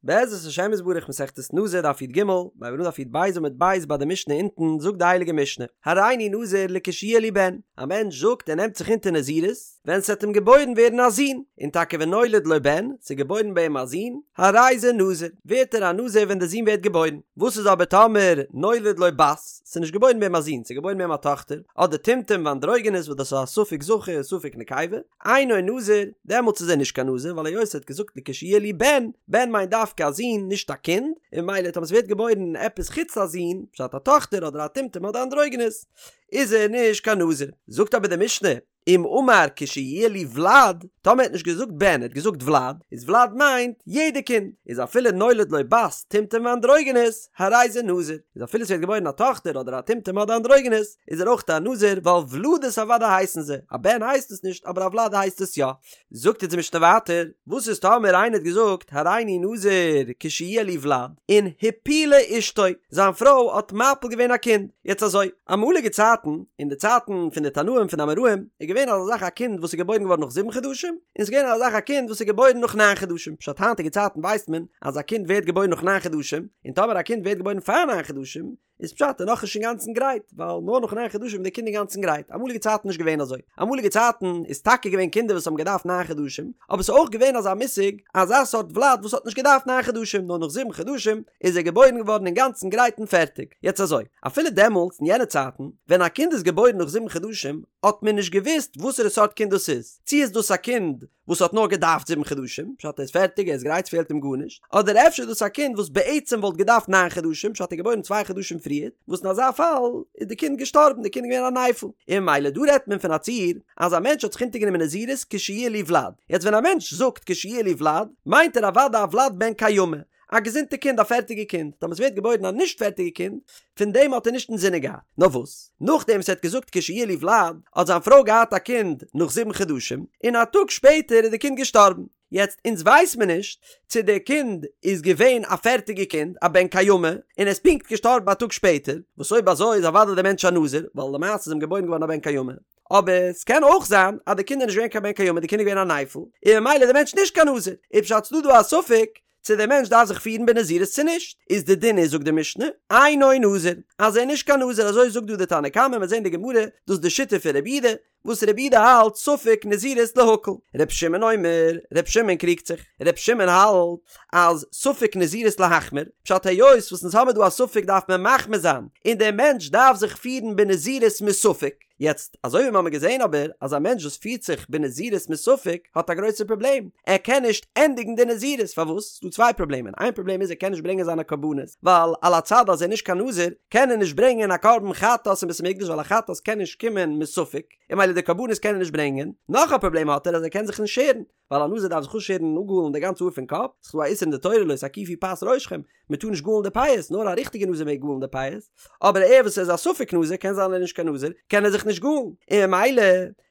בעזרת השם יתברך מסכת נזיר דף י"ג, מיר הייבן אן דף י"ב עמוד ב' ביי די משנה אונטן זאגט די הייליגע משנה, הריני נזיר לכשיהיה לי בן, א מענטש זאגט ער נעמט זיך אונטער נזירות ווען ס'עט אים געבוירן ווערן א זון, און טאקע ונולד לו בן, ס'איז געבוירן ביי אים א זון, הרי זה נזיר, ווערט ער א נזיר ווען די זון ווערט געבוירן, וואס איז אבער טאמער נולד לו בת, ס'איז נישט געבוירן ביי אים א זון, ס'איז געבוירן ביי אים א טאכטער, אדער טומטום ואנדרוגינוס וואס דאס איז א ספק זכר ספק נקבה, אינו נזיר, דעמאלטס איז ער נישט קיין נזיר, ווייל היות ער האט געזאגט לכשיהיה לי בן, בן מיינט דווקא א זון, נישט א קינד, און ממילא טאמער ס'ווערט געבוירן עפעס חוץ א זון, פשט א טאכטער אדער א טומטום אדער אנדרוגינוס, איז ער נישט קיין נזיר. זאגט אבער די משנה, אם אמר כשיהיה לי ולד, טאמער ער האט נישט געזאגט בן, ער האט געזאגט ולד, איז ולד מיינט יעדע קינד, איז אפילו נולד לו בת, טומטום ואנדרוגינוס, הרי זה נזיר, איז אפילו ס'ווערט געבוירן א טאכטער אדער א טומטום אדער אנדרוגינוס, איז ער אויך א נזיר ווייל ולדות אוודאי הייסן זיי, א בן הייסט עס נישט אבער א ולד הייסט עס יא. זאגט אונז די משנה ווייטער, וואס איז טאמער איינער האט געזאגט הריני נזיר כשיהיה לי ולד, און הפילה אשתו, זיין פרוי האט מפיל געווען א קינד, יעצט אזוי, אמאליגע צייטן, אין די צייטן פון די תנאים פון די אמוראים, איז געווען אזא זאך א קינד וואס איז געבוירן געווארן נאך זיבן חדשים, און ס'איז געווען אזא זאך א קינד וואס איז געבוירן נאך ניין חדשים, פשט היינטיגע צייטן ווייסט מען אז א קינד ווערט געבוירן נאך ניין חדשים, און טאמער א קינד ווערט געבוירן פאר ניין חדשים, איז פשט ער איז נאכנישט אינגאנצן גרייט, ווייל נאר נאך ניין חדשים איז די קינד אינגאנצן גרייט, אמאליגע צייטן נישט געווען אזוי, אמאליגע צייטן איז טאקע געווען קינדער וואס האבן געדארפט ניין חדשים, אבער ס'איז אויך געווען אזא מושג, אזא סארט ולד וואס האט נישט געדארפט ניין חדשים, נאר נאך זיבן חדשים איז ער געבוירן געווארן אינגאנצן גרייט און פערטיג, יעצט אזוי, אפילו דעמאלטס אין יענע צייטן, ווען א קינד איז געבוירן נאך זיבן חדשים, האט מען נישט געוואוסט וואסערע סארט קינד דאס איז, צי איז דאס א קינד וואס האט נאר געדארפט זיבן חדשים, פשט ער איז פערטיג ער איז גרייט ס'פעלט אים גארנישט, אדער אפשר איז דאס א קינד וואס בעצם וואלט געדארפט ניין חדשים, פשט ער איז געבוירן צוויי חדשים פריער, וואס אין אזא פאל איז די קינד געשטארבן, די קינד איז געווען א נפל. און ממילא דא רעדט מען פון א ציור אז א מענטש האט זיך אונטערגענומען נזירות כשיהיה לי ולד, יעצט ווען א מענטש זאגט כשיהיה לי ולד, מיינט ער אוודאי א ולד בן קיימא, א געזונטע קינד א פערטיגע קינד, טאמער ס'ווערט געבוירן א נישט פערטיגע קינד, פון דעם האט ער נישט אינזינען געהאט. נאר וואס, נאכדעם וואס ער האט געזאגט כשיהיה לי ולד, האט זיין פרוי געהאט א קינד נאך זיבן חדשים, און א טאג שפעטער איז די קינד געשטארבן. יעצט אונז ווייס מיר נישט צו די קינד איז געווען א פערטיגע קינד, א בן קיימא, און ער איז פונקט געשטארבן א טאג שפעטער, וואס אויב אזוי איז אוודאי דער מענטש א נזיר, ווייל למעשה איז אים געבוירן געווארן א בן קיימא. אבער ס'קען אויך זיין אז די קינד איז נישט געווען קיין בן קיימא, די קינד איז געווען א נפל, און ממילא איז דער מענטש נישט קיין נזיר. איז פשט ס'דא דא א ספק צו דער מענטש דארף זיך פירן בנזירות צו נישט, איז די דין איז זאגט די משנה, אינו נזיר, אז ער איז נישט קיין נזיר אזוי זאגט דא די תנא קמא, מיר זעהן די גמרא, דאס איז די שיטה פון רבי יהודה, וואס רבי יהודה האלט ספק נזירות להקל, ר' שמעון אומר, ר' שמעון קריגט זיך, ר' שמעון האלט אז ספק נזירות להחמיר, פשט היות וואס אונז האמיר דא א ספק דארף מען מחמיר זיין, און דער מענטש דארף זיך פירן בנזירות מספק. יעצט, אזוי ווי מ'האמיר געזען אבער, אז א מענטש וואס פירט זיך בנזירות מספק האט א גרויסע פראבלעם, ער קען נישט ענדיגן די נזירות, פארוואס? ס'דא צוויי פראבלעמען, איין פראבלעם איז ער קען נישט ברענגען זיינע קרבנות, ווייל על הצד אז ער איז נישט קיין נזיר, קען ער נישט ברענגען א קרבן חטאת אין בית המקדש ווייל א חטאת קען נישט קומען מספק, און ממילא די קרבנות קען ער נישט ברענגען, נאך א פראבלעם האט ער אז ער קען זיך נישט שערן, ווייל א נזיר דארף זיך אפשערן און אפגאלן די גאנצע האר פון קאפ, ס'איז דא א איסור אין די תורה לא תקיפו פאת ראשכם, מען טאר נישט גאלן די פאות, נאר א ריכטיגע נזיר מעג גאלן די פאות, אבער ער וואס איז א ספק נזיר קען זיין ער איז נישט קיין נזיר, קען ער זיך נישט גאלן, און ממילא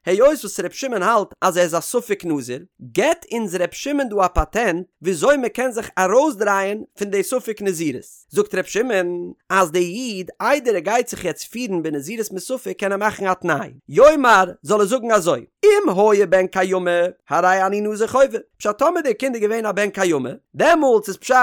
היות וואס ר' שמעון האלט אז ער איז א ספק נזיר, געבט אונז ר' שמעון דא א פאטענט וויאזוי מען קען זיך ארויסדרייען פון די ספק נזירות, זאגט ר' שמעון אז די איד איידער ער גייט זיך יעצט פירן בנזירות מספק קען ער מאכן א תנאי, יאמר זאל ער זאגן אזוי, אם היה בן קיימא הרי אני נזיר חובה, פשט טאמער דער קינד איז געווען א בן קיימא, דעמאלטס איז פשט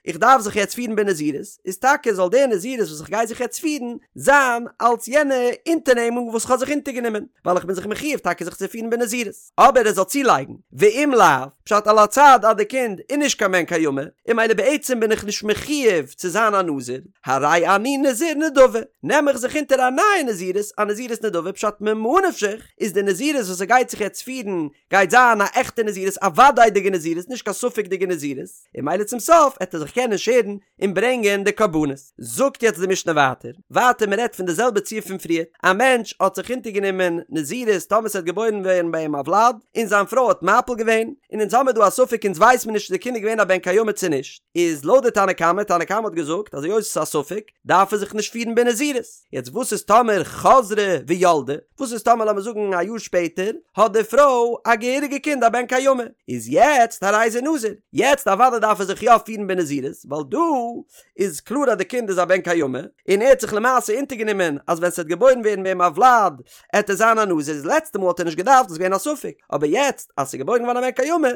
איך דארף זיך יעצט פירן בנזירות, איז טאקע זאל דער נזירות וואס איך גיי זיך יעצט פירן זיין אלס יענע אונטערנעמונג וואס איך האב זיך אונטערגענומען, ווייל איך בין זיך מחיוב טאקע זיך צו פירן בנזירות. אבער ער זאל צולייגן, ואם לאו, פשט על הצד אז די קינד איז נישט קיין בן קיימא, און ממילא בעצם בין איך נישט מחיוב צו זיין א נזיר, הרי אני נזיר נדבה, נעם איך זיך אונטער א נייע נזירות, א נזירות נדבה, פשט ממה נפשך, איז די נזירות וואס ער גייט זיך יעצט פירן, גייט זיין א עכטע נזירות, א וודאי'דיגע נזירות, נישט קיין ספק'דיגע נזירות, און ממילא צום סוף עט ער זיך קענען שערן און ברענגען די קרבנות. זאגט יעצט די משנה ווייטער, ווייטער מען רעדט פון די זעלבע ציור פון פריער, א מענטש האט זיך אונטערגענומען נזירות טאמער ס'וועט געבוירן ווערן ביי אים א וולד, און זיין פרוי האט מפיל געווען, און אונז האמיר דא א ספק אונז ווייס מיר נישט צו די קינד איז געווען א בן קיימא צו נישט, איז לויט די תנא קמא, תנא קמא האט געזאגט אז היות עס איז א ספק, דארף ער זיך נישט פירן בנזירות. יעצט וואס איז טאמער חזרה וילדה, וואס איז טאמער לאמיר זאגן א יאר שפעטער האט די פרוי א געהעריגע קינד א בן קיימא, איז יעצט הרי זה נזיר, יעצט אוודאי דארף ער זיך יא פירן בנזירות, ווייל דא איז קלאר אז די קינד איז א בן קיימא, און ער האט זיך למעשה אונטערגענומען אז ווען ס'וועט געבוירן ווערן ביי אים א וולד עט ער זיין א נזיר, איז לעצטע מאל האט ער נישט געדארפט איז געווען א ספק, אבער יעצט אז ס'איז געבוירן געווארן א בן קיימא,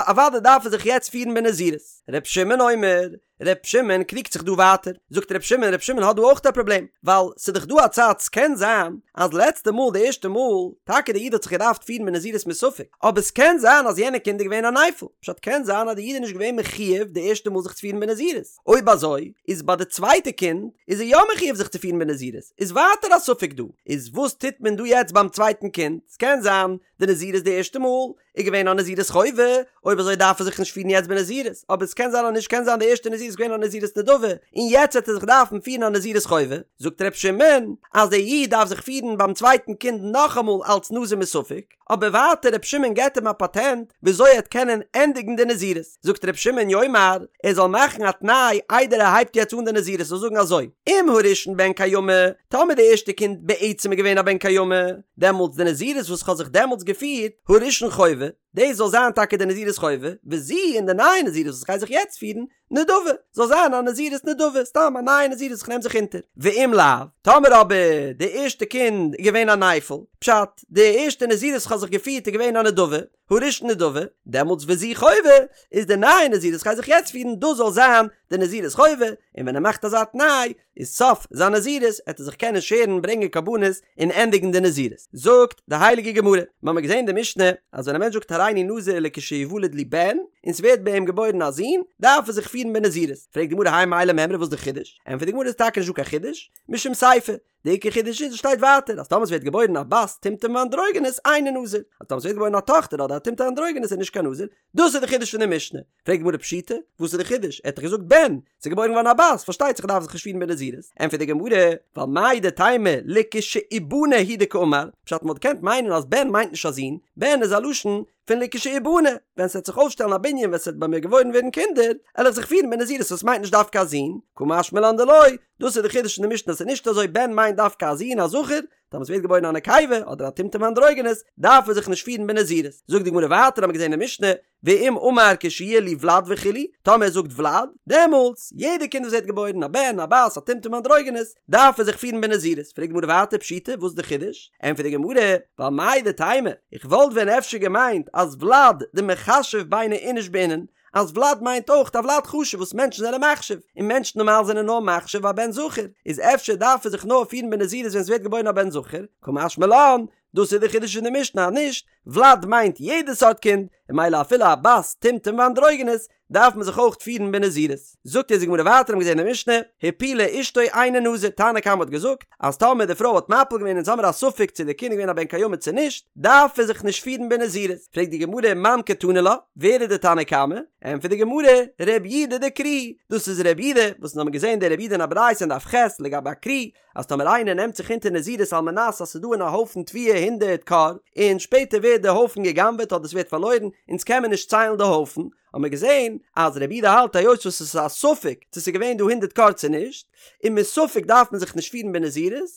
אוודאי דארף ער זיך יעצט פירן בנזירות. ר' שמעון. שמעון אומר, ר' שמעון קריגט זיך דא ווייטער, זאגט ר' שמעון, ר' שמעון האט דא אויך א פראבלעם, ווייל ס'איז דאך דא א צד ס'קען זיין אז לעצטע מאל די ערשטע מאל, טאקע די איד האט זיך געדארפט פירן בנזירות מספק, אבער ס'קען זיין אז יענע קינד איז געווען א נפל, פשט קען זיין אז די איד איז נישט געווען מחיוב די ערשטע מאל זיך צו פירן בנזירות, אויב אזוי איז ביי די צווייטע קינד איז ער יא מחיוב זיך צו פירן בנזירות, איז ווייטער א ספק דא, איז וואס טוט מען דא יעצט ביים צווייטן קינד, ס'קען זיין די נזירות די ערשטע מאל איז געווען א נזירות חובה, אויב אזוי דארף ער זיך נישט פירן יעצט בנזירות, אבער עס קען זיין אז נישט קען זיין די ערשטע נזירות איז געווען א נזירות נדבה, און יעצט וועט ער זיך דארפן פירן א נזירות חובה, זאגט ר' שמעון אז דער איד דארף זיך פירן ביים צווייטן קינד נאכאמאל אלץ נזיר מספק, אבער ווייטער ר' שמעון געבט אים א פאטענט וויאזוי ער וועט קענען ענדיגן די נזירות, זאגט ר' שמעון יאמר, ער זאל מאכן א תנאי איידער ער הייבט יעצט אן די נזירות זאל זאגן אזוי, אם הראשון בן קיימא, טאמער די ערשטע קינד בעצם איז געווען א בן קיימא, דעמאלטס די נזירות וואס כ'האב זיך דעמאלטס געפירט, הראשון חובה, דאס זאל זיין טאקע די נזירות חובה, וזו און די נייע נזירות וואס כ'גיי זיך יעצט פירן, נדבה, זאל זיין א נזירות נדבה, סתם א נייע נזירות וואס כ'נעם זיך אונטער. ואם לאו, טאמער אבער די ערשטע קינד איז געווען א נפל, פשט, די ערשטע נזירות וואס כ'האב זיך געפירט איז געווען א נדבה, הראשון נדבה, דעמאלטס וזו חובה, איז די נייע נזירות וואס כ'גיי זיך יעצט פירן, דאס זאל זיין די נזירות חובה, און ווען ער מאכט אזא תנאי, איז סוף זיין נזירות עט ער זיך קענען שערן ברענגען קרבנות און ענדיגן די נזירות. זאגט די הייליגע גמרא, מ'האמיר געזען די משנה אז ווען א מענטש זאגט הריני נזיר לכשיוולד לי בן און ס'ווערט ביי אים געבוירן א זון דארף ער זיך פירן בנזירות, פרעגט די גמרא האי מאי למימרא וואס איז די חידוש? ענטפערט די גמרא איז טאקע נישט דא קיין חידוש, משום סיפא, די עיקר חידוש איז עס שטייט ווייטער אז טאמער ס'ווערט געבוירן א בת טומטום ואנדרוגינוס אינו נזיר, אז טאמער ס'ווערט געבוירן א טאכטער אדער א טומטום אנדרוגינוס איז נישט קיין נזיר, דאס איז די חידוש פון די משנה. פרעגט די גמרא פשיטא, וואס איז די חידוש? ער האט דאך געזאגט בן, ס'איז געבוירן געווארן א בת, פארשטייט זיך ער דארף זיך נישט פירן בנזירות. ענטפערט די גמרא, ווייל מהו דתימא לכשיבנה הוא דקאמר, פשט מ'וואלט געקענט מיינען אז בן מיינט נישט א זון, בן איז א לשון פון לכשיבנה, ווען ס'וועט זיך אויפשטעלן א בנין ווען ס'וועט ביי מיר געבוירן ווערן קינדער, על איך זיך פירן בנזירות וואס מיינט נישט דווקא א זון, קא משמע לן דלא, דאס איז די חידוש פון די משנה אז ס'איז נישט אזוי בן מיינט דווקא א זון א זכר, טאמער ס'ווערט געבוירן א נקבה אדער א טומטום אנדרוגינוס דארף ער זיך נישט פירן בנזירות. זאגט די גמרא ווייטער האמיר געזען אין משנה, ואם אמר כשיהיה לי ולד וכו', טאמער ער זאגט ולד, דעמאלטס, יעדע קינד וואס ווערט געבוירן, א בן, א בת, א טומטום אנדרוגינוס, דארף ער זיך פירן בנזירות. פרעגט די גמרא ווייטער פשיטא, וואס איז די חידוש? ענטפערט די גמרא, ווייל מהו דתימא, איך וואלט ווען אפשר געמיינט אז ולד דמיחשב ביני איניש בעינן, אז ולד מיינט אויך א ולד חשוב וואס מענטשן זענען מחשיב, און מענטשן נארמאל זענען נאר מחשיב א בן זכר, איז אפשר דארף ער זיך נאר פירן בנזירות ווען ס'ווערט געבוירן א בן זכר, קא משמע לן, דאס איז די חידוש פון די משנה אז נישט, ולד מיינט יעדע סארט קינד, און ממילא אפילו א בת טומטום ואנדרוגינוס דארף מען זיך אויך פירן בנזירות. זאגט אונז די גמרא ווייטער האבן געזען אין די משנה, הפילה אשתו אינו נזיר, תנא קמא האט געזאגט אז טאמער די פרוי האט מפיל געווען אונז האמיר א ספק צו די קינד איז געווען א בן קיימא צו נישט, דארף ער זיך נישט פירן בנזירות. פרעגט די גמרא מאן קתני לה, ווער איז די תנא קמא? ענטפערט די גמרא, רב יודא דקרי, דאס איז רב יודא, וואס אונז האבן געזען די רב יודא אין א ברייתא אין דף ח' לגבי א כרי, אז טאמער איינער נעמט זיך אונטער נזירות על מנת אז ס'איז דא אין א הויפן תבואה הונדערט כור, און שפעטער ווערט די הויפן גע'גנב'עט אדער ס'ווערט פארלוירן, אונז קען מען נישט ציילן די הויפן, האבן מיר געזען אז רבי יודא האלט היות וואס עס איז א ספק צו ס'איז געווען דא הונדערט כור צו נישט, און מספק דארף מען זיך נישט פירן בנזירות,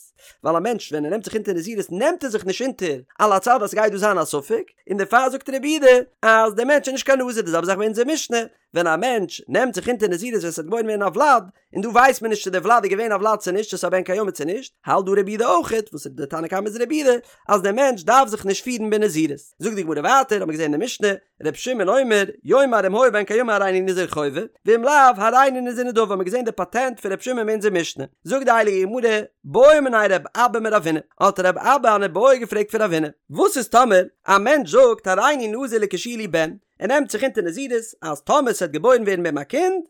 ווייל א מענטש ווען ער נעמט זיך אונטער נזירות נעמט ער זיך נישט אונטער על הצד אז ס'גייט דא זיין א ספק, און דערפאר זאגט רבי יודא אז דער מענטש איז נישט קיין נזיר, די זעלבע זאך ביי אונזער משנה, ווען א מענטש נעמט זיך אונטער נזירות ווען ס'וועט געבוירן ווערן א ולד, און דא ווייסט מען נישט צו דער ולד איז געווען א ולד צו נישט, צו ס'איז א בן קיימא צו נישט, האלט דא רבי יודא אויכעט, וואס איז די תנא קמא איז רבי יודא, אז דער מענטש דארף זיך נישט פירן בנזירות. זאגט די גמרא ווייטער, האט מען געזען אין די משנה, ר' שמעון אומר, יאמר אם היה בן קיימא הריני נזיר חובה, ואם לאו, הריני נזיר נדבה, האט מען געזען די פאטענט פון ר' שמעון אין אונזער משנה. זאגט די הייליגע גמרא, בעא מיניה רב אבא מרב הונא, האט רב אבא אן איבעיא געפרעגט פון רב הונא, וואס איז טאמער א מענטש זאגט הריני נזיר לכשיהיה לי בן, ער נעמט זיך אונטער נזירות אז טאמער ס'וועט געבוירן ווערן ביי אים א קינד,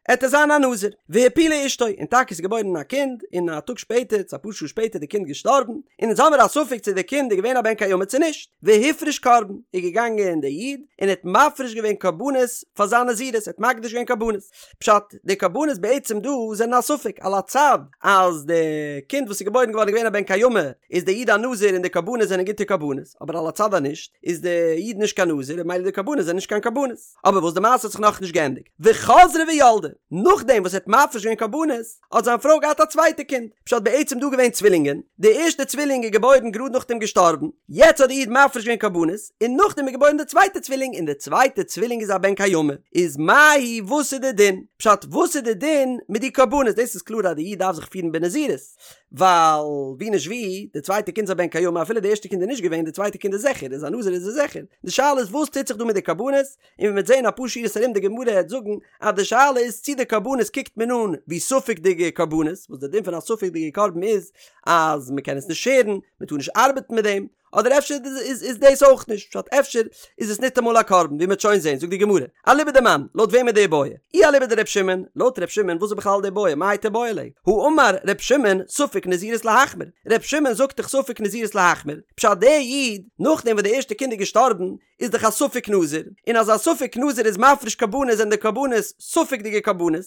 עט ער זיין א נזיר. והפילה אשתו, און טאקע ס'איז געבוירן א קינד, און א טאג שפעטער, צו אפאר שעה שפעטער איז די קינד געשטארבן, און אונז האמיר א ספק צו די קינד איז געווען א בן קיימא צו נישט. והפריש קרבן, איז געגאנגען דער איד און האט מפריש געווען קרבנות פאר זיין נזירות, ער האט מקדיש געווען קרבנות. פשט, די קרבנות בעצם דא זענען א ספק, על הצד אז די קינד וואס איז געבוירן געווארן איז געווען א בן קיימא, איז דער איד א נזיר און די קרבנות זענען גוטע קרבנות, אבער על הצד אז נישט, איז די איד נישט קיין נזיר און ממילא די קרבנות זענען נישט קיין קרבנות. אבער וואס די מעשה האט זיך נאכנישט געענדיגט, וחזרה וילדה, נאכדעם וואס ער האט מפריש געווען קרבנות, האט זיין פרוי געהאט א צווייטע קינד, פשט בעצם דא געווען צווילינגען, די ערשטע צווילינג איז געבוירן גראד נאכדעם געשטארבן, יעצט האט די איד מפריש געווען קרבנות, און נאכדעם איז געבוירן די צווייטע צווילינג און די צווייטע צווילינג איז א בן קיימא, איז מהו וואס איז די דין? פשט וואס איז די דין מיט די קרבנות? דאס איז קלאר אז די איד דארף זיך פירן בנזירות, ווייל ווי נישט ווי, די צווייטע קינד איז א בן קיימא אפילו די ערשטע קינד איז נישט געווען, די צווייטע קינד איז זיכער, איז א נזיר איז ער זיכער, די שאלה איז וואס טוט זיך דא מיט די קרבנות? קרבנות, און ווי מ'וועט זען אפאר שורות ארום די גמרא העט זאגן אז די שאלה איז צי די קרבנות קוקט מען אן ווי ספק'דיגע קרבנות, וואס די דין פון א ספק'דיגע קרבן איז אז מ'קען עס נישט שערן, מ'טאר נישט ארבעטן מיט דעם, אדער אפשר איז דאס אויך נישט פשט אפשר איז עס ניטאמאל א קרבן ווי מ'וועט שוין זען זאגט די גמרא אליבא דמאן לויט וועם איז די איבעיא אי אליבא דר' שמעון לויט ר' שמעון וואס איז בכלל די איבעיא מאי תיבעי ליה האמר ר' שמעון ספק נזירות להחמיר ר' שמעון זאגט דאך ספק נזירות להחמיר פשט דער איד נאכדעם וואס די ערשטע קינד איז געשטארבן איז דאך א ספק נזיר און אז א ספק נזיר איז מפריש קרבנות זענען די קרבנות ספק'דיגע קרבנות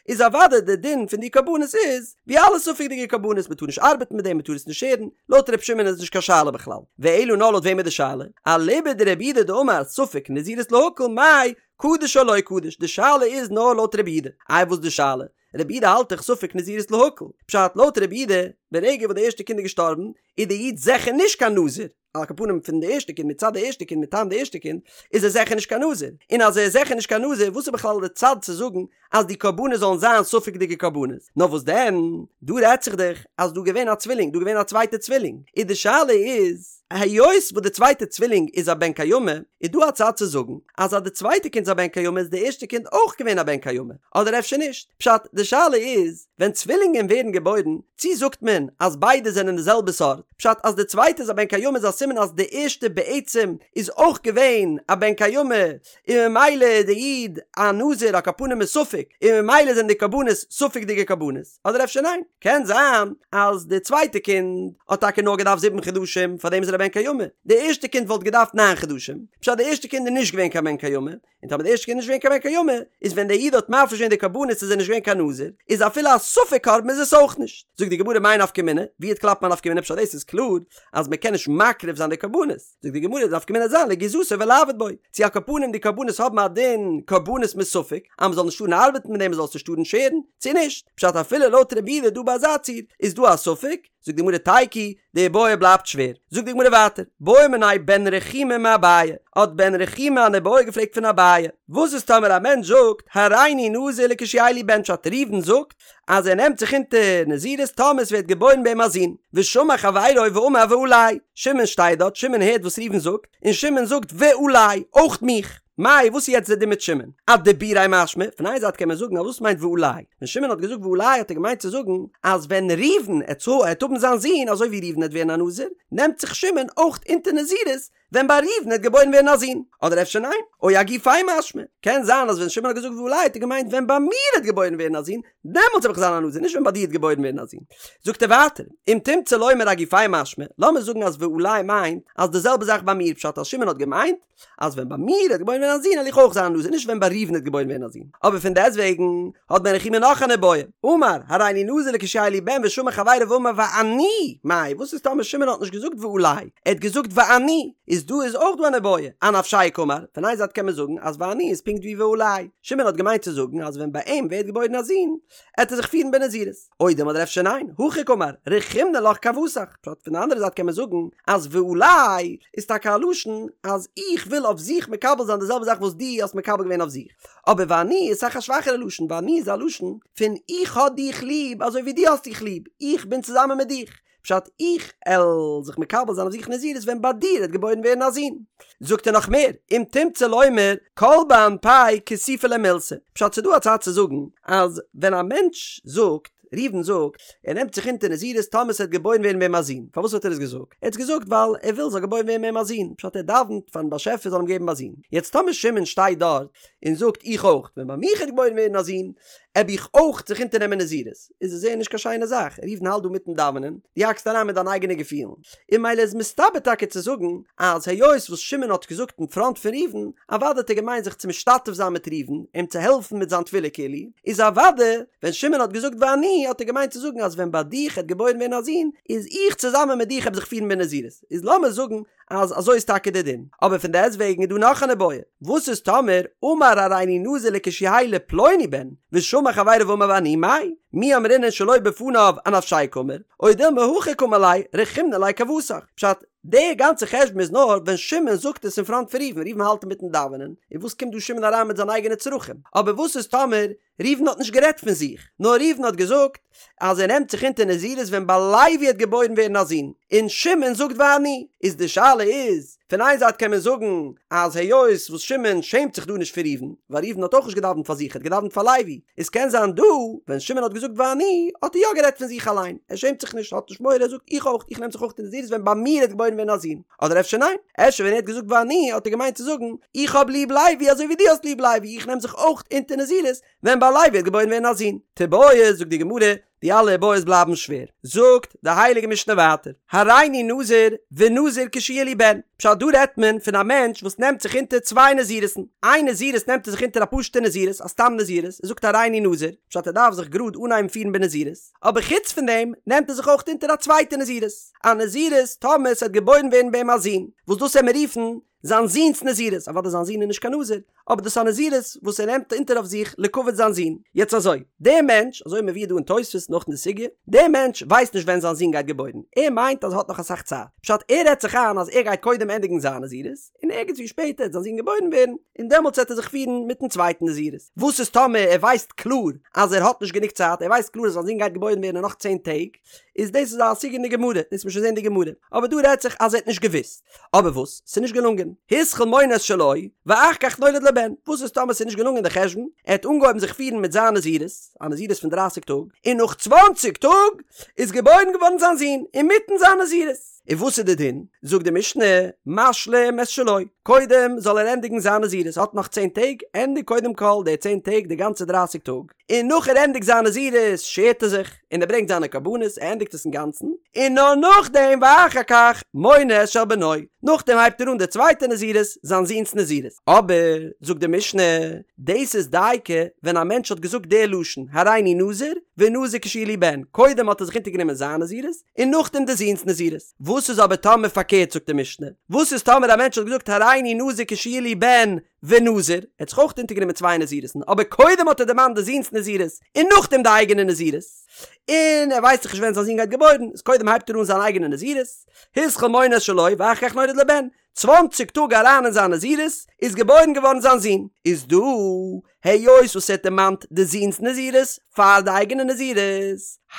איז אוודאי די דין פון די קרבנות איז ווי אלע ספק'דיגע קרבנות מען טאר נישט ארבעטן מיט דעם מען טאר עס נישט שערן, לויט ר' שמעון איז נישט קיין שאלה בכלל, ואלא נאר לויט וועם איז די שאלה? אליבא דרבי יהודה דאמר ספק נזירות להקל מאי קדוש או לא קדוש, די שאלה איז נאר לויט רבי יהודה, איי וואס די שאלה? רבי יהודה האלט דאך ספק נזירות להקל, פשט לויט רבי יהודה ברגע וואס די ערשטע קינד איז געשטארבן איז די איד זיכער נישט קיין נזיר, על כל פנים פון די ערשטע קינד מצד די ערשטע קינד מטעם די ערשטע קינד איז ער זיכער נישט קיין נזיר, און אז ער איז זיכער נישט קיין נזיר וואס איז בכלל די צד צו זאגן אז די קרבנות זאלן זיין ספק'דיגע קרבנות? נאר וואס דען דא רעדט זיך דאך אז דא געווען א צווילינג דא געווען א צווייטע צווילינג איז די שאלה איז היות וואס די צווייטע צווילינג איז א בן קיימא איז דא א צד צו זאגן אז אז די צווייטע קינד איז א בן קיימא איז די ערשטע קינד אויך געווען א בן קיימא אדער אפשר נישט פשט די שאלה איז ווען צווילינגען ווערן געבוירן צי זאגט מען אז ביידע זענען די זעלבע סארט פשט אז די צווייטע איז א בן קיימא איז א סימן אז די ערשטע בעצם איז אויך געווען א בן קיימא און ממילא איז די איד א נזיר על כל פנים מספק און ממילא זענען די קרבנות ספק'דיגע קרבנות אדער אפשר ניין קען זיין אז די צווייטע קינד האט טאקע נאר געדארפט זיבן חדשים פארדעם איז ער א בן קיימא די ערשטע קינד וואלט געדארפט ניין חדשים פשט די ערשטע קינד איז נישט געווען קיין בן קיימא און טאמער די ערשטע קינד איז נישט געווען קיין בן קיימא, איז ווען דער איד האט מפריש געווען די קרבנות איז ער נישט געווען קיין נזיר, איז אפילו א ספק קרבן איז עס אויך נישט. זאגט די גמרא מאי נפקא מינה, ווי וועט קלאפן א נפקא מינה פשט דאס איז קלאר אז מען קען נישט מקריב זיין די קרבנות, זאגט די גמרא די נפקא מינה זיין לגיזתו ולעבוד בו, צו על כל פנים די קרבנות האבן א דין קרבנות מספק, אז מען זאל נישט טארן ארבעטן מיט דעם מען זאל עס נישט טארן שערן, צו נישט, פשט אפילו לויט רבי יהודה דא ביי אזא ציור איז דא א ספק, זאגט די גמרא תיקו, די איבעיא בלייבט שווער. זאגט די גמרא ווייטער, בעא מיניה בן רחומי מאביי, האט בן רחומי אן איבעיא געפרעגט פון אביי, וואס איז טאמער א מענטש זאגט, הריני נזיר לכשיהא לי בן פשט ראובן זאגט אז ער נעמט זיך אונטער נזירות טאמער עס ווערט געבוירן ביי אים א זון, ושמע חברו ואמר ועלי, שמעון שטייט דארט, שמעון הערט וואס ראובן זאגט, און שמעון זאגט ועלי, אויך מיך. מאי, וואס איז יעצט די דין מיט שמעון? אדיבוריה משמע, פון איין זייט קען מען זאגן אז וואס מיינט ועלי? ווען שמעון האט געזאגט ועלי האט ער געמיינט צו זאגן אז ווען ראובן עט עט האבן זיין זון אזוי ווי ראובן עט ווערן א נזיר, נעמט זיך שמעון אויך אונטער נזירות ווען ביי ראובן עט געבוירן ווערן א זון. אדער אפשר ניין? או אגופיה משמע, קען זיין אז ווען שמעון האט געזאגט ועלי האט ער געמיינט ווען ביי מיר עט געבוירן ווערן א זון, דעמאלטס וועל איך זיין א נזיר, נישט ווען ביי דיר עט געבוירן ווערן א זון. זאגט ער ווייטער, אם תמצא לומר אגופיה משמע, לאמיר זאגן אז ועלי מיינט אז די זעלבע זאך ביי מיר פשט אז שמעון האט געמיינט, אז ווען ביי מיר עט געבוירן ווערן א זון וועל איך אויך זיין א נזיר נישט ווען ביי ראובן עט געבוירן ווערן א זון אבער פון דעסטוועגן האט בן רחומי נאך אן איבעיא אמר הריני נזיר לכשיהא לי בן ושמע חברו ואמר ואני מאי וואס איז טאמער שמעון האט נישט געזאגט ועלי ער האט געזאגט ואני איז דא איז אויך דא אן איבעיא אנפשיה קאמר פון איין זייט קען מען זאגן אז ואני איז פונקט ווי ועלי שמעון האט געמיינט צו זאגן אז ווען ביי אים ווערט געבוירן א זון עט ער זיך פירן בנזירות. או דילמא אדער אפשר ניין, הכי קאמר, רחימנא לך כוותך, פשט פון די אנדערע זייט קען מען זאגן אז ועלי איז טאקע א לשון אז איך וויל אויף זיך מקבל זיין די זעלבע זאך וואס דו האסט מקבל געווען אויף זיך, אבער ואני איז אסאך א שוואכערע לשון, ואני איז א לשון פון איך האב דיך ליב אזוי ווי דו האסט דיך ליב, איך בין צוזאמען מיט דיך, פשט איך על זיך מקבל זיין אויף זיך נזירות ווען ביי דיר עט געבוירן ווערן א זון. זאגט ער נאך מער, אם תמצא לומר כל באנפיה כסופא ליה מילתא, פשט ס'דא א צד צו זאגן אז ווען א מענטש זאגט, ראובן זאגט, ער נעמט זיך אונטער נזירות טאמער ס'וועט געבוירן ווערן ביי אים א זון, פארוואס האט ער עס געזאגט? ער האט עס געזאגט ווייל ער וויל ס'זאל געבוירן ווערן ביי אים א זון, פשט ער דאווענט פארן באשעפער זאל אים געבן א זון, יעצט טאמער שמעון שטייט דארט און זאגט איך אויך, ווען ביי מיך וועט געבוירן ווערן א זון, עב איך אויך זיך אונטערנעמען נזירות, איז עס זייער נישט קיין שיינע זאך, ראובן האלט דא מיטן דאווענען, דו האקסט אריין מיט דיינע אייגענע געפילן, און ממילא איז מסתבר טאקע צו זאגן אז היות וואס שמעון האט געזאגט אין פראנט פון ראובן, אוודאי האט ער געמיינט זיך צו משתתף זיין מיט ראובן, אים צו העלפן מיט זיין תפילה כאילו, איז אוודאי ווען שמעון האט געזאגט ואני האט ער געמיינט צו זאגן אז ווען ביי דיך העט געבוירן ווערן א זון, איז איך צוזאמען מיט דיך העב זיך פירן בנזירות, איז לאמיר זאגן אז אזוי איז טאקע די דין, אבער פון דעסט וועגן איז דא נאך אן איבעיא, וואס איז טאמער אמר הריני נזיר לכשיהא לפלוני בן, ושמע חברו ואמר ואני מאי, מי אמרינן שלא בפניו אנפשיה קאמר, או דילמא הכי קאמר ליה, רחימנא ליה כוותך, פשט, די גאנצע חשבון איז נאר ווען שמעון זאגט עס אין פראנט פון ראובן, ראובן האלט אינמיטן דאווענען, און וואס קומט דא שמעון אריין מיט זיינע אייגענע צרכים, אבער וואס איז טאמער. ראובן האט נישט גערעדט פון זיך, נאר ראובן האט געזאגט אז ער נעמט זיך אונטער נזירות ווען ביי לוי העט געבוירן ווערן א זון, און שמעון זאגט ואני, איז די שאלה איז, פון איין זייט קען מען זאגן אז היות וואס שמעון שעמט זיך דא נישט פון ראובן, ווייל ראובן האט אויך נישט געדאווענט פאר זיך ער האט געדאווענט פאר לוי, איז קען זיין דא ווען שמעון האט געזאגט ואני האט ער יא גערעדט פון זיך אליין, ער שעמט זיך נישט האט נישט מורא ער זאגט איך אויך איך נעם זיך אויך אונטער נזירות ווען ביי מיר העט געבוירן ווערן א זון, אדער אפשר ניין, אפשר ווען ער האט געזאגט ואני האט ער געמיינט צו זאגן איך האב ליב לוי אזוי ווי דו האסט ליב לוי איך נעם זיך אויך אונטער נזירות ווען ביי לוי העט געבוירן ווערן א זון. תיבעי זאגט די גמרא, די אלע איבעיות בלייבן שווער. זאגט די הייליגע משנה ווייטער, הריני נזיר ונזיר כשיהיה לי בן, פשט דא רעדט מען פון א מענטש וואס נעמט זיך אונטער צוויי נזירות'ן, איין נזירות נעמט ער זיך אונטער א פשוטע נזירות, א סתם נזירות, ער זאגט הריני נזיר, פשט ער דארף זיך גראד אנהייבן פירן בנזירות, אבער חוץ פון דעם נעמט ער זיך אויך אונטער א צווייטע נזירות, א נזירות טאמער ס'וועט געבוירן ווערן ביי אים א זון, וואס דאס עמיר רופן זיין זון'ס נזירות, אוודאי זיין זון איז נישט קיין נזיר, אבער דאס איז א נזירות וואס ער נעמט אונטער אויף זיך לכבוד זיין זון. יעצט אזוי, דער מענטש, אזוי מבואר דא אין תוספות נאך אין די סוגיא, דער מענטש ווייסט נישט ווען זיין זון גייט געבוירן, ער מיינט אז ער האט נאך אסאך צייט, פשט ער רעדט זיך איין אז ער גייט קודם ענדיגן זיין נזירות, און ערגעץ ווי שפעטער וועט זיין זון געבוירן ווערן, און דעמאלטס וועט ער זיך פירן מיטן צווייטן נזירות. וואס איז טאמער ער ווייסט קלאר אז ער האט נישט גענוג צייט, ער ווייסט קלאר אז זיין זון גייט געבוירן ווערן אין נאך צען טעג, איז דאס איז א סוגיא אין די גמרא, דאס וועט מען שוין זען אין די גמרא, אבער דא רעדט זיך אז ער האט נישט געוואוסט. אבער וואס? ס'איז נישט געלונגען. התחיל מונה את שלו, ואחר כך נולד לו בן. וואס איז טאמער ס'איז נישט געלונגען די חשבון? ער האט אנגעהויבן זיך פירן מיט זיין נזירות, א נזירות פון דרייסיג טאג, און נאך צוואנציג טאג איז געבוירן געווארן זיין זון, אינמיטן זיין נזירות. און וואס איז די דין? זאגט די משנה, משלים את שלו, קודם זאל ער ענדיגן זיין נזירות, האט נאך צען טעג, ענדיג קודם כל די צען טעג, די גאנצע דרייסיג טאג, און נאך ער ענדיגט זיין נזירות שערט ער זיך, און ער ברענגט זיינע קרבנות, ער ענדיגט עס אינגאנצן, און נאר נאכדעם ואחר כך מונה את של בנו, נאכדעם הייבט ער אן די צווייטע נזירות, זיין זון'ס נזירות. אבער, זאגט די משנה, דאס איז דייקא ווען א מענטש האט געזאגט די לשון, הריני נזיר, ונזיר כשיהיה לי בן, קודם האט ער זיך אונטערגענומען זיין נזירות, און נאכדעם די זון'ס נזירות. וואס איז אבער טאמער פארקערט זאגט די משנה, וואס איז טאמער א מענטש האט געזאגט הריני נזיר כשיהיה לי בן, ונזיר, ער האט זיך אויך אונטערגענומען צוויי נזירות'ן, אבער קודם האט ער דערמאנט די זון'ס נזירות, און נאכדעם די אייגענע נזירות, און ער ווייסט דאך נישט ווען זיין זון גייט געבוירן, איז קודם הייבט ער אן זיין אייגענע נזירות, התחיל מונה את שלו ואחר כך נולד לו בן, צוואנציג טאג אריין אין זיין נזירות, איז געבוירן געווארן זיין זון, איז דא, היות וואס ער האט דערמאנט די זון'ס נזירות פאר די אייגענע נזירות,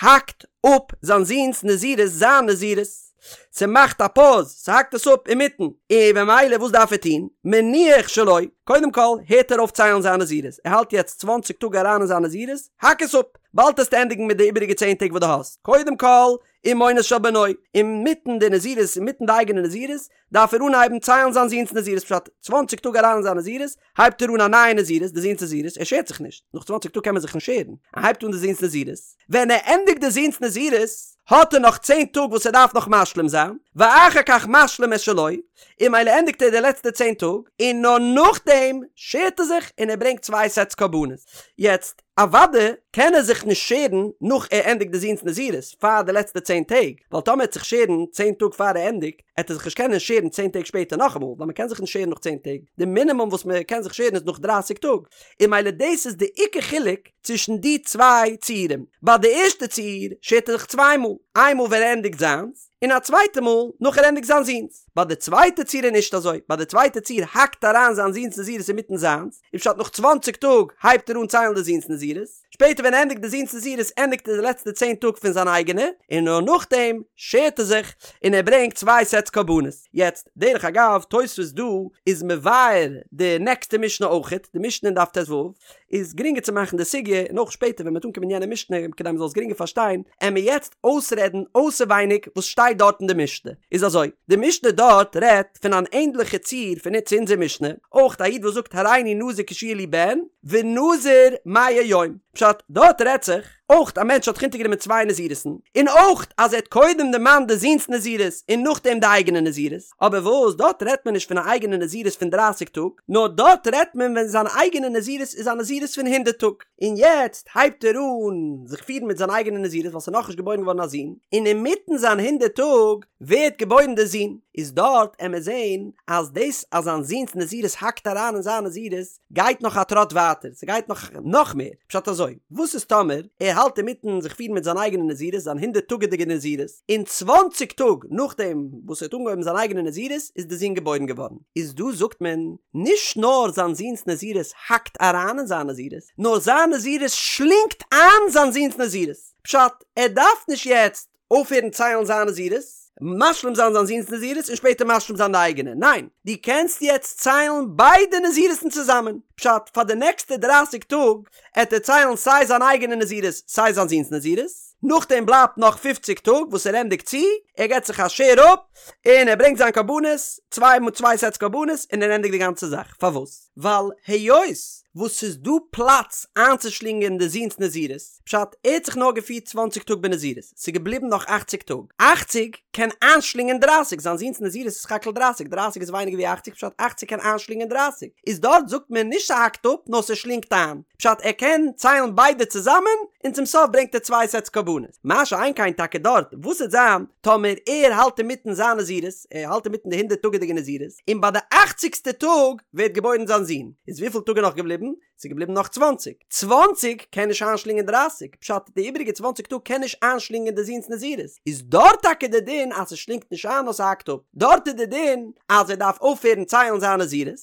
האקט אפ זיין זון'ס נזירות זיין נזירות. ס'מאכט א פאוז, ס'האקט עס אפ אינמיטן, און במילא וואס דארף ער טון? מניח שלו, קודם כל הערט ער אויף ציילן זיין נזירות, ער האלט יעצט צוואנציג טאג אריין אין זיין נזירות, האק עס אפ, באלד וועסטו ענדיגן מיט די איבעריגע צען טעג וואס דו האסט, קודם כל ומונה את של בנו, אינמיטן די נזירות, אינמיטן די אייגענע נזירות, דארף ער אנהייבן ציילן זיין זון'ס נזירות, פשט, צוואנציג טאג אריין אין זיין נזירות, הייבט ער אן א נייע נזירות, די זון'ס נזירות, ער שערט זיך נישט, נאך צוואנציג טאג קען מען זיך נישט שערן, ער הייבט אן די זון'ס נזירות, ווען ער ענדיגט די זון'ס נזירות, האט ער נאך צען טאג וואס ער דארף נאך משלים זיין, ואחר כך משלים את שלו, און ממילא ענדיגט ער די לעצטע צען טאג, און נאר נאכדעם שערט ער זיך און ער ברענגט צוויי סעטס קרבנות. יעצט, אוודאי קען ער זיך נישט שערן נאך ער ענדיגט די זון'ס נזירות, פאר די לעצטע צען טעג, ווייל טאמער ער וועט זיך שערן צען טאג פאר ער ענדיגט, עט ער זיך נישט קענען שערן צען טעג שפעטער נאכאמאל, ווייל מ'קען זיך נישט שערן נאך צען טעג, די מינימום וואס מ'קען זיך שערן איז נאך דרייסיג טאג, און ממילא דאס איז די עיקר חילוק צווישן די צוויי ציורים, ביי די ערשטע ציור שערט ער זיך צוויי מאל, איין מאל ווען ער ענדיגט זיינס, און א צווייטע מאל נאך ער ענדיגט זיין זון'ס, ביי די צווייטע ציור איז נישט אזוי, ביי די צווייטע ציור האקט אריין זיין זון'ס נזירות אינמיטן זיינס, און פשט נאך צוואנציג טאג הייבט ער אן ציילן די זון'ס נזירות, שפעטער ווען ער ענדיגט די זון'ס נזירות ענדיגט ער די לעצטע צען טאג פון זיין אייגענע, און נאר נאכדעם שערט ער זיך און ער ברענגט צוויי סעטס קרבנות. יעצט, דרך אגב, תוספות דא איז מבאר די נעקסטע משנה אויכעט, די משנה אין דף ט"ו, איז גרינגער צו מאכן די סוגיא, און אויך שפעטער ווען מ'וועט אנקומען יענע משנה כדי מ'זאל עס גרינגער פארשטיין, עמיר יעצט אויסרעדן אויסערווייניג וואס שטייט דארט אין די משנה. איז אזוי, די משנה דארט רעדט פון אן ענדליכע ציור פון צו אונזער משנה, אויך א איד וואס זאגט הריני נזיר כשיהיה לי בן, ונזיר מאה יום. פשט, דארט רעדט זיך, אויך א מענטש האט זיך אונטערגענומען צוויי נזירות'ן, און אויך אז ער האט קודם דערמאנט די זון'ס נזירות און נאכדעם די אייגענע נזירות, אבער וואס, דארט רעדט מען נישט פון א אייגענע נזירות פון דרייסיג טאג, נאר דארט רעדט מען ווען זיין אייגענע נזירות איז א נזירות פון הונדערט טאג, און יעצט הייבט ער אן זיך פירן מיט זיין אייגענע נזירות ווייל ס'איז נאכנישט געבוירן געווארן א זון, און אינמיטן זיין הונדערט טאג ווערט געבוירן די זון, איז דארט עמיר זעהן אז דאס אז זיין זון'ס נזירות האקט אריין אין זיין נזירות גייט נאך א טראט ווייטער, ס'גייט נאך נאך מער, פשט אזוי, וואס איז טאמער ער ער האלט אינמיטן זיך פירן מיט זיין אייגענע נזירות, זיין הונדערט טאגעדיגע נזירות, און צוואנציג טאג נאכדעם וואס ער האט אנגעהויבן זיין אייגענע נזירות איז די זון געבוירן געווארן. איז דא זאגט מען, נישט נאר זיין זון'ס נזירות האקט אריין אין זיין נזירות, נאר זיין נזירות שלינגט איין זיין זון'ס נזירות. פשט, ער דארף נישט יעצט אויפהערן ציילן זיין נזירות, משלים זיין זיין זון'ס נזירות און שפעטער משלים זיין די אייגענע, ניין, דו קענסט יעצט ציילן ביידע נזירות'ן צוזאמען, פשט, פאר די נעקסטע דרייסיג טאג עט ער ציילן סיי זיין אייגענע נזירות סיי זיין זון'ס נזירות, נאכדעם בלייבט נאך פופציג טאג וואס ער ענדיגט צו, ער געבט זיך א שער אפ און ער ברענגט זיין קרבנות, צוויי מאל צוויי סעטס קרבנות און ער ענדיגט די גאנצע זאך, פארוואס? ווייל היות וואס ס'איז דא פלאץ איינצושלינגען די זון'ס נזירות, פשט, ער האט זיך נאר געפירט צוואנציג טאג בנזירות, ס'איז געבליבן נאך אכציג טאג, אכציג קען איינשלינגען דרייסיג, זיין זון'ס נזירות איז סך הכל דרייסיג, דרייסיג איז ווייניגער ווי אכציג, פשט, אכציג קען איינשלינגען דרייסיג, איז דארט זאגט מען נישט ס'האקט אפ, נאר ס'שלינגט איין, פשט, ער קען ציילן ביידע צוזאמען, און צום סוף ברענגט ער צוויי סעטס קרבנות. מה שאין כן טאקע דארט, וואס וועט זיין טאמער ער האלט אינמיטן זיין נזירות, ער האלט אינמיטן די הונדערט טאגעדיגע נזירות, און ביי די אכציגסטע טאג ווערט געבוירן זיין זון, איז וויפיל טאג איז נאך געבליבן? ס'איז געבליבן נאך צוואנציג. צוואנציג קען נישט איינשלינגען דרייסיג, פשט די איבעריגע צוואנציג טאג קען נישט איינשלינגען די זון'ס נזירות, איז דארט טאקע די דין אז ס'שלינגט נישט איין נאר ס'האקט אפ, דארט איז די דין אז ער דארף אויפהערן ציילן זיין נזירות,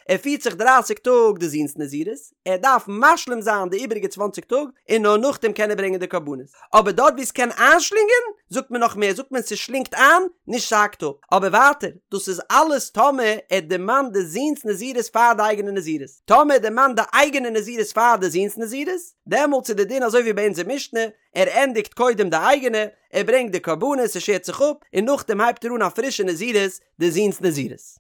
ער פירט זיך דרייסיג טאג די זון'ס נזירות, ער דארף משלים זיין די איבעריגע צוואנציג טאג און נאר נאכדעם קען ער ברענגען די קרבנות, אבער דארט וואו ס'קען איינשלינגען זאגט מען נאך מער זאגט מען ס'שלינגט איין נישט ס'האקט אפ, אבער ווייטער דאס איז אלעס טאמער ער דערמאנט די זון'ס נזירות פאר די אייגענע נזירות. טאמער ער דערמאנט די אייגענע נזירות פאר די זון'ס נזירות, דעמאלטס איז די דין אזוי ווי ביי אונזער משנה, ער ענדיגט קודם די אייגענע, ער ברענגט די קרבנות, ער שערט זיך אפ, און נאכדעם הייבט ער אן א פרישע נזירות, די זון'ס נזירות.